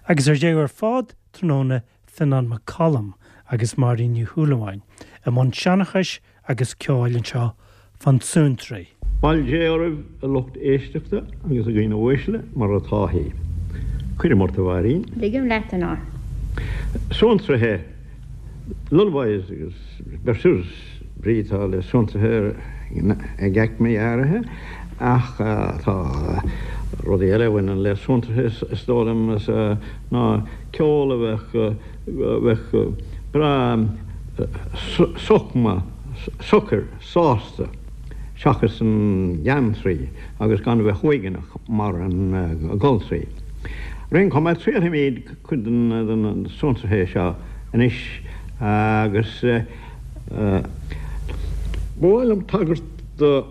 Agus ar deireadh ar fad tráthnóna Fionnán Mac Coluim agus Máirín Ní Shúilleabháin i mbun seanchais agus ceoil anseo fán tSuantraí. Bail Dé oraibh a lucht éisteachta agus a dhaoine uaisle, mar atá thí. Cuirim ort a Mháirín. Ligim leat, a Fhionnáin. Suantraithe, lullabies agus berceuse, brí atá le suantraithe ag aicmí áirithe ach tá rudaí eile a bhaineann le suantraithe is dóigh liom ná ceol a bheadh bheadh breá sochma, socair, sásta seachas an geantraí agus gan a bheith uaigneach mar an goltraí. Ar aon chuma, triailfimid cuid de na suantraithe seo anois agus ba mhaith liom tagairt do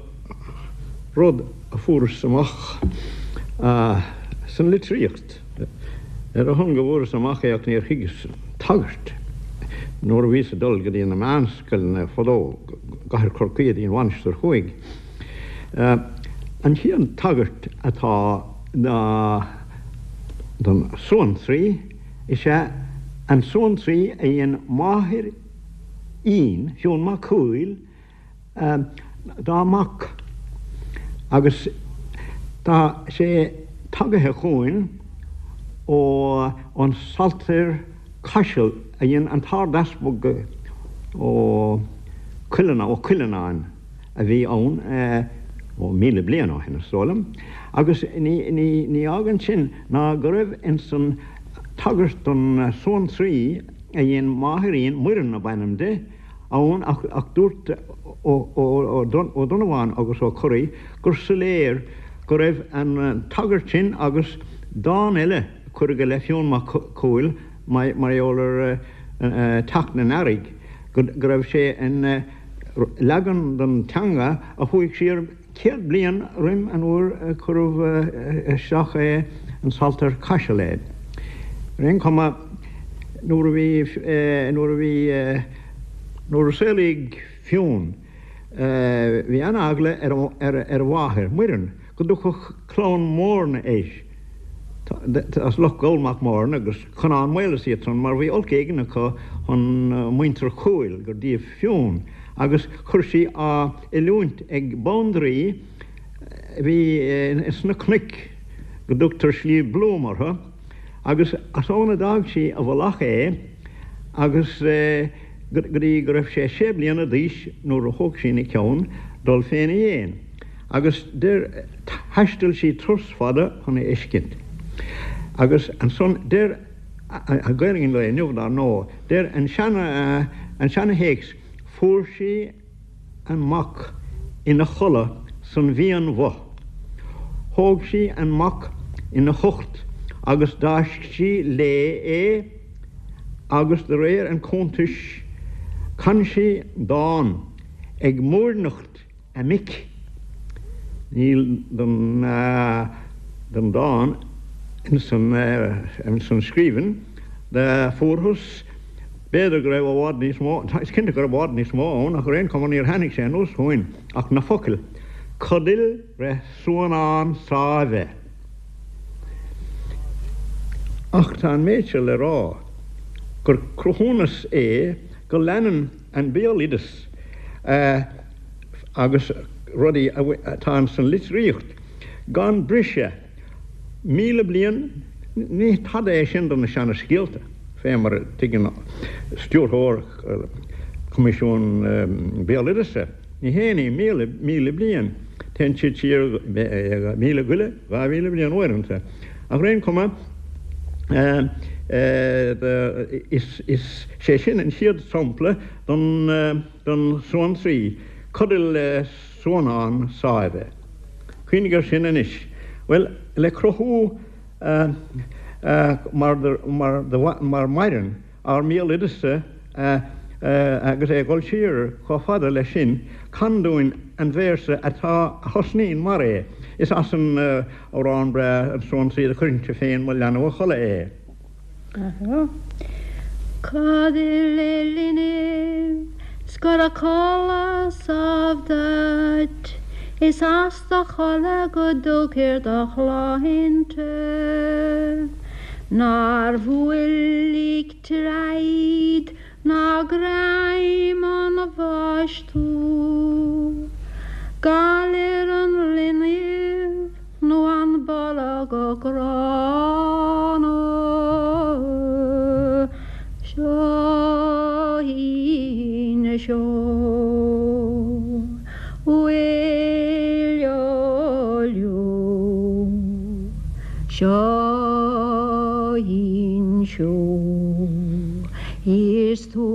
rud a fuaireas amach san litríocht. Ar a shon go bhfuaireas amach é ach níor thuigeas an tagairt. Nuair a bhíos ag dul go dtí na meánscoileanna fadó, i gcathair Chorcaí go dtí an Mhainistir Thuaidh, an chéad tagairt atá don suantraí is ea an suantraí a dhein máthair Fhinn, Fionn Mac Cumhaill, dá mac agus tá sé tagaithe chugainn ó an Saltair Caiseal a dhein an tArd-Easpag Ó Cuileanáin a bhí ann ó 1000 bliain ó shin is dóigh liom agus ní fhágann sin ná go raibh ins an tagairt don suantraí a dhein máthair Fhinn, Muireann ab ainm di, ann ach dúirt Ó Donnabháin agus Ó Curraoin gur soiléir go raibh an tagairt sin agus dán eile a cuireadh i leith Fionn Mac Cumhaill mar gheall ar teacht an earraigh, go raibh sé in leagan den teanga a chuaigh siar 100 bliain roim an uair a cuireadh isteach é in Saltair Caiseal é. Ar aon chuma, nuair a bhí, nuair a bhí, nuair a saolaíodh Fionn, bhí an-eagla ar a mháthair, Muireann, go dtiocfadh clann Mhóirne air, as Loch Goll Mac Móirne agus Conán Maol is iad san, mar bhí olc éigin acu chun muintir Chumhaill, gur díobh Fionn, agus chuir sí á oiliúint ag bandraoi a bhí sna cnoic, go dtugtar Sliabh Bloom orthu, agus as ann a d'fhág sí i bhfolach é agus go dtí go raibh sé sé bliana d'aois nuair a thóg sí ina ceann dul féna dhéin. Agus deir, thaistil sí turas fada chun é fheiscint. Agus ansan deir, Gaelainn an lae inniu dar ndóigh, deir an seana, an seana-théacs, fuair sí an mac ina chodladh san mhian-bhoth. Thóg sí an mac ina hucht agus d'fháisc sí léi é agus de réir an chuntais chan sí dán ag múirneacht a mic. Níl den den dán ins an scríbhinn do fuarthas. B'fhéidir go raibh i bhfad níos mó, is cinnte go raibh i bhfad níos mó ann, ach ar aon chuma níor tháinig sé anuas chugainn ach na focail, Codail re suanán sáimhe. Ach tá an méid seo le rá, gur cruthúnas é go leanann an béaloideas agus rudaí atá ins an litríocht gan briseadh 1000 bliain, ní tada é sin do na seana-scéalta, fé mar a tuigeann stiúrthóir Choimisiún Béaloideasa. Ní haon ní 1000 bliain, téann siad siar míle go leith, 2000 bliain uaireanta. Ach ar aon chuma, is é sin an chéad sampla don suantraí, codail le suanán sáimhe. Cuimhnigh air sin anois. Bhuel, le cruthú mar maireann ár mbéaloideas agus é ag dul siar chomh fada leis sin, can dúinn an véarsa atá a thosnaíonn mar é. Is as an amhrán breá An Suantraí do chuirfinnse féin mo leanbh a chodladh é. Codail le linbh 's go raibh codladh sámh duit, Is as do chodladh go dtugthar do shláinte. Nár bhuail ag troid ná greim an bháis tú. Galar an linbh nó an bolg gránna. Seo í seo uailleo liú. Seo í seo is tú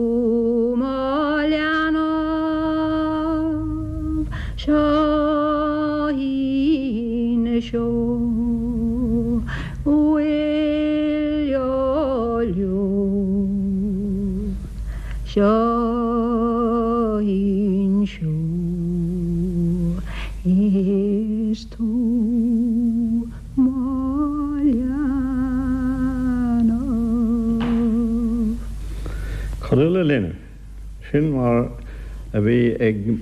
mo leanbh. Seo í seo uailleo liú. Seo í seo is tú mo leanbh. Codal a linbh, sin mar a bhí ag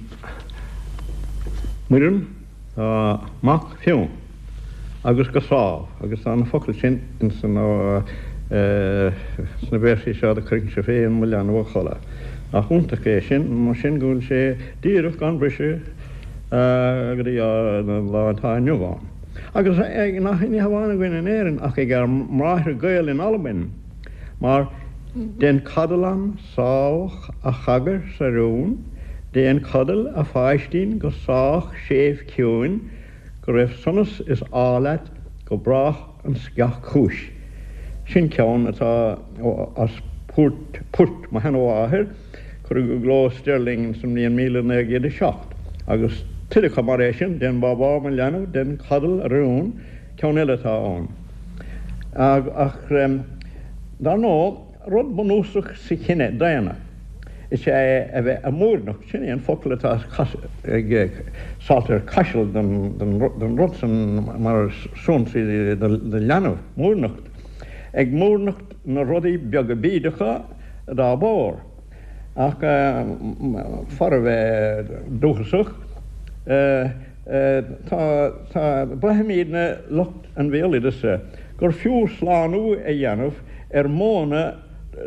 Muireann dá mac Fionn agus go sámh, agus tá na focail sin ins na véarsaí seo do cuirfinnse féin mo leanbh a chodladh. Nach iontach é sin, mar sin go bhfuil sé díreach gan briseadh go dtí an lá atá inniu ann. Agus nach ní hamháin againn in Éirinn ach ag ár mbráithre Gael in Albain, mar Dein codal am sách a chagair 's a rún, déan codal a pháistín go sách séimh ciúin, go raibh sonas is ádh leat go brách an sceach chúis. Sin ceann atá as port, port mo sheanmháthair, Cuireadh i gcló i Stirling sa mbliain 1907, agus tuilleadh acu mar é sin, Déan bábá mo leanbh, déan codal a rún, ceann eile atá ann. Ach dar ndóigh, rud bunúsach sa chine daonna is ea é a bheith ag múirneacht, sin é an focal atá ag Saltair Chaisil don rud san mar suantraí do leanbh, múirneacht, ag múirneacht na rudaí beaga bídeacha, dá bharr. Ach fara bheith dúchasach, tá, tá, braithimidne, lucht an bhéaloideasa, gur fiú slánú a dhéanamh ar mhodhanna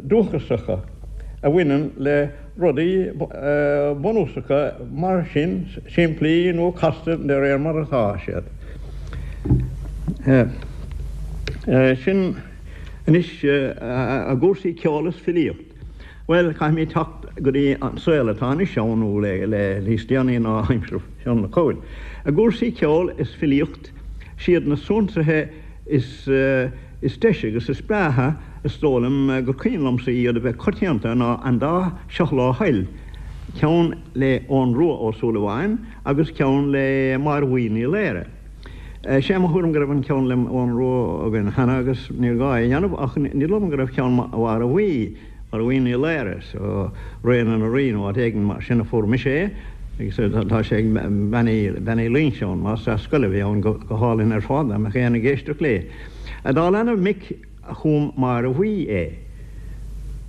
dúchasacha a bhaineann le rudaí bunúsacha mar sin, simplí nó casta de réir mar atá siad. Sin. Anois, i gcúrsaí ceoil is filíocht, bhuel, caithfimid teacht go dtí an saol atá anois ann, nó le níos déanaí ná aimsir Fionn Mac Cumhaill. I gcúrsaí ceoil is filíocht, siad na suantraithe is is deise agus is breátha is dóigh liom gur cuimhin liomsa iad a bheith coitianta ná an dá Seo Leo Thoil, ceann le Eoghan Rua Ó Súilleabháin agus ceann le Máire Bhuí Ní Laoire. Sé mo thuairim go raibh an ceann le Eoghan Rua againn cheana agus níor ghá é a dhéanamh ach ní dóigh liom go raibh ceann Mháire Bhuí, Máire Bhuí Ní Laoire, so Ré na nDoirí nó áit éigin mar sin a fuair mise é agus tá sé ag Bean Uí Loingseáin, máistreás scoile a bhí ann go hálainn ar fad dá mbeadh éinne ag éisteacht léi. Dá leanbh mic a chum Máire Bhuí é.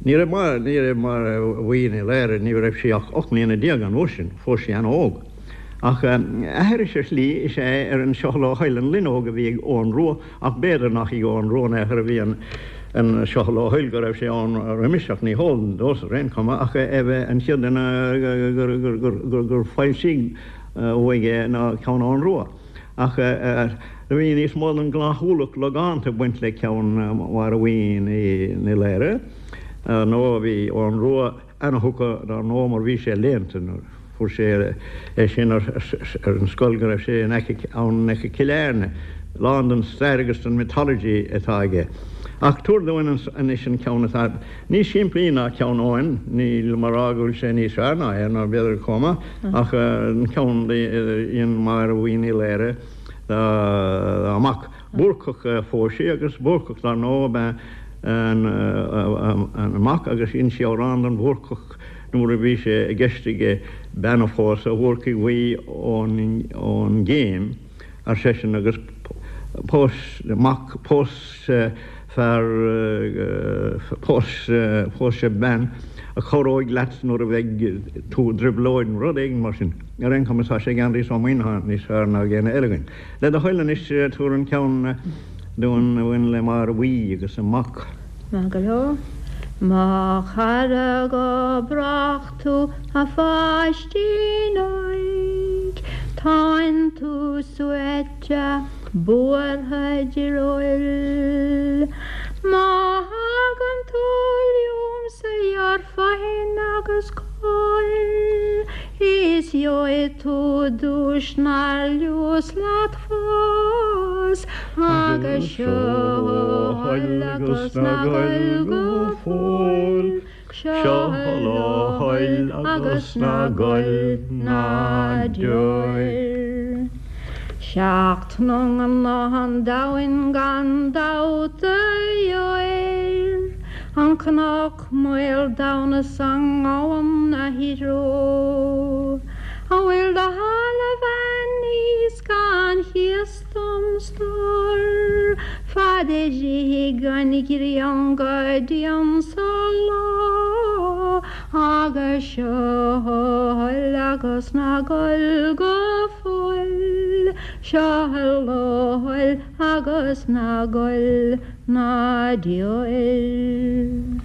Ní raibh Máire, ní raibh Máire Bhuí Ní Laoire, ní raibh sí ach 18 mbliana an uair sin, phós sí an-óg. Ach aithris ar shlí is ea é ar an Seo Leo Thoil an Loinneog a bhí ag Eoghan Rua ach b'fhéidir nach ag Eoghan Rua in aon chor a bhí an Seo Leo Thoil go raibh sé ann roimis ach ní heol domhsa ar aon chuma ach é bheith an chéad duine gur foilsíodh uaidh é ná ceann Eoghan Rua. Ach bhí níos mó den ghnáth-ualach logánta ag baint le ceann Mháire Bhuí Ní Laoire nó bhí Eoghan Rua ana-thugtha dar ndóigh mar bhí sé léannta nuair a fuair sé é sin ar an scoil go raibh sé in aice ann in aice Cill Airne, lán den stair agus den mythology atá aige. Ach tabhair dúinn anois an ceann atá níos simplí ná ceann Eoghain, nílim a rá go bhfuil sé níos fearr ná é, nó b'fhéidir chomh maith, ach an ceann a dhein Máire Bhuí Ní Laoire dá mac. Búrcach a phós sí agus Búrcach dar ndóigh ab ea an mac agus dhein sí amhrán don Bhúrcach nuair a bhí sé i gceist aige bean a phósadh, a Bhúrcaigh Bhuí ón gCéim, ar seisean, agus pós mac, pós fear, pós, pós bean a chabhróidh leat nuair a bheidh tú i dtrioblóid nó rud éigin mar sin. Ar aon chuma tá sé ag Aindrias Ó Muimhneacháin níos fearr ná ag éinne eile againn. Le do thoil anois, tabhair an ceann. dúinn a bhain le Máire Bhuí agus a mac. Maith go leor. Mo chara go brách tú a pháistín óig, Tánn tú suaite buartha direoil. Má thagann tú liomsa gheobhair fothain agus cóir, Is gheobhaidh tú duais nár liús leat fós, Agus seo a thoil agus ná goil go fóill, Seo a thoil agus ná goil ná deoir. 'Seacht n-iongnadh an domhain gan dabht a gheobhair, An cnoc maol domhain is an gabhann 'na threo. An bhfuil do thalamh aníos gan chíos dom stór, Fad a rithfidh an ghrian go dtí ansa lá, Agus seo a thoil agus ná gol go fóill, Seo a thoil agus ná gol ná deoir.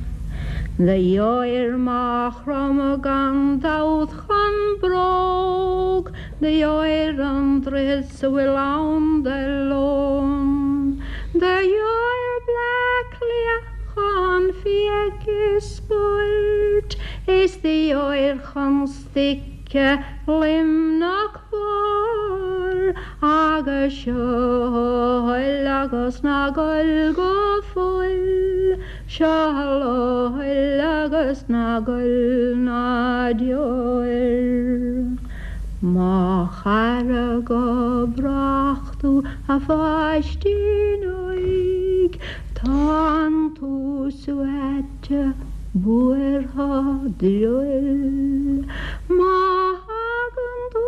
Do gheobhair Maigh Chromtha gan dabht chun bróg, Do gheobhair an droichead 's a bhfuil ann de lón, Do gheobhair Bleá Cliath chun fiaigh is spóirt, Is do gheobhair chun stuice Luimneach Mhór, Agus seo a thoil agus ná gol go fóill, Seo a thoil agus ná gol ná deoir. Mo chara go brách tú a pháistín óig, Tánn tú suaite buartha direoil. Má thagann tú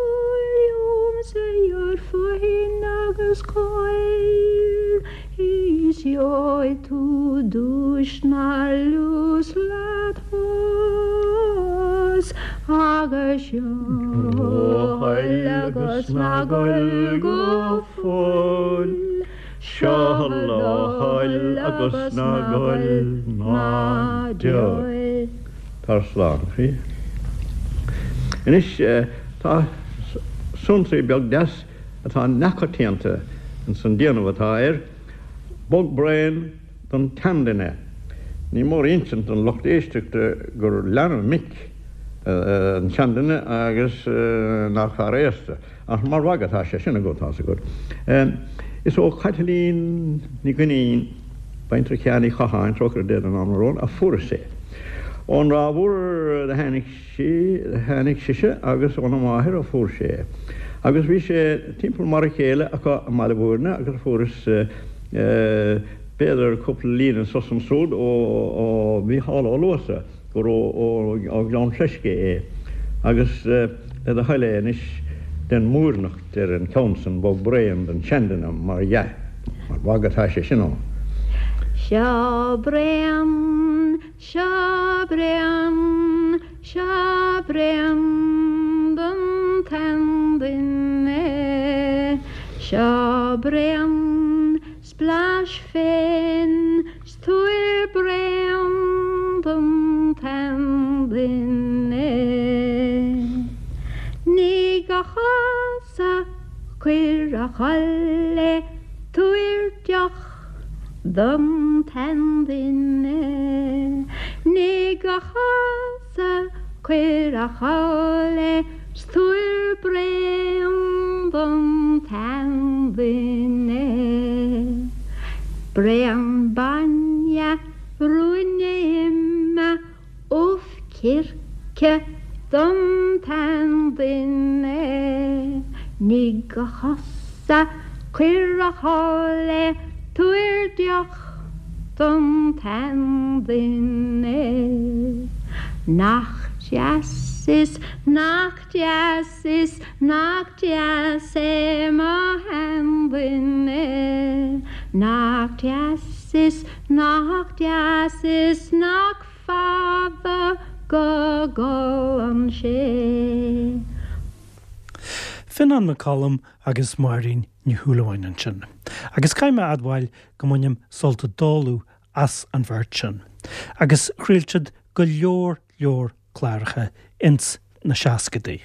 liomsa gheobhair fothain agus cóir, Is gheobhaidh tú duais nár liús leat fós, Agus seo a thoil agus ná gol go fóill. Seo a thoil agus ná gol ná deoir. Tar slán, a chroí. Anois tá suantraí beag deas atá neamhchoitianta ins an déanamh atá air, Bog Braon don tSeanduine. Ní mór a insint don lucht éisteachta gur leanbh mic an seanduine agus nach fear aosta. Ach mar mhagadh atá sé sin agat, tá's agat. Is ó Chaitlín Ní Dhuinnín, baintreach Sheáin Uí Chatháin, trócaire Dé don anam araon, a fuaireas é. Ón Ráth Mhór do tháinig sí, tháinig sise agus óna máthair a fuair sé é. Agus bhí sé timpeall mar a chéile acu i mBaile Bhúirne agus fuaireas b'fhéidir cúpla líne anso 's ansúd ó Mhícheál Ó Luasa. gur ó Ghleann Fleisce é, agus le do thoil é anois, déan múirneacht ar an cheann san, Bog Braon don Seanduine, mar dhea, mar mhagadh atá sé sin ann. Seo braon, seo braon, seo braon don tseanduine, Seo braon 's blais féin 's tabhair braon don tseanduine. Nigh a chosa, cuir a chodladh é, tabhair deoch don tseanduine. Nigh a chosa, cuir a chodladh é, 's tabhair braon don tseanduine. Braon bainne, ruainne ime, ubh circe don tseanduine. Nigh a chosa, cuir a chodladh é, tabhair deoch don tseanduine. Nach deas is nach deas is nach deas é mo sheanduine. Nach deas is nach deas is nach fada go gcolann sé. Fionán McCollum agus Máirín Ní Shúilleabháin ansin. Agus caithfidh mé a admháil go mbainim sult i dtólamh as an bheirt sin. Agus chraol siad go leor leor cláracha ins na seascadaí.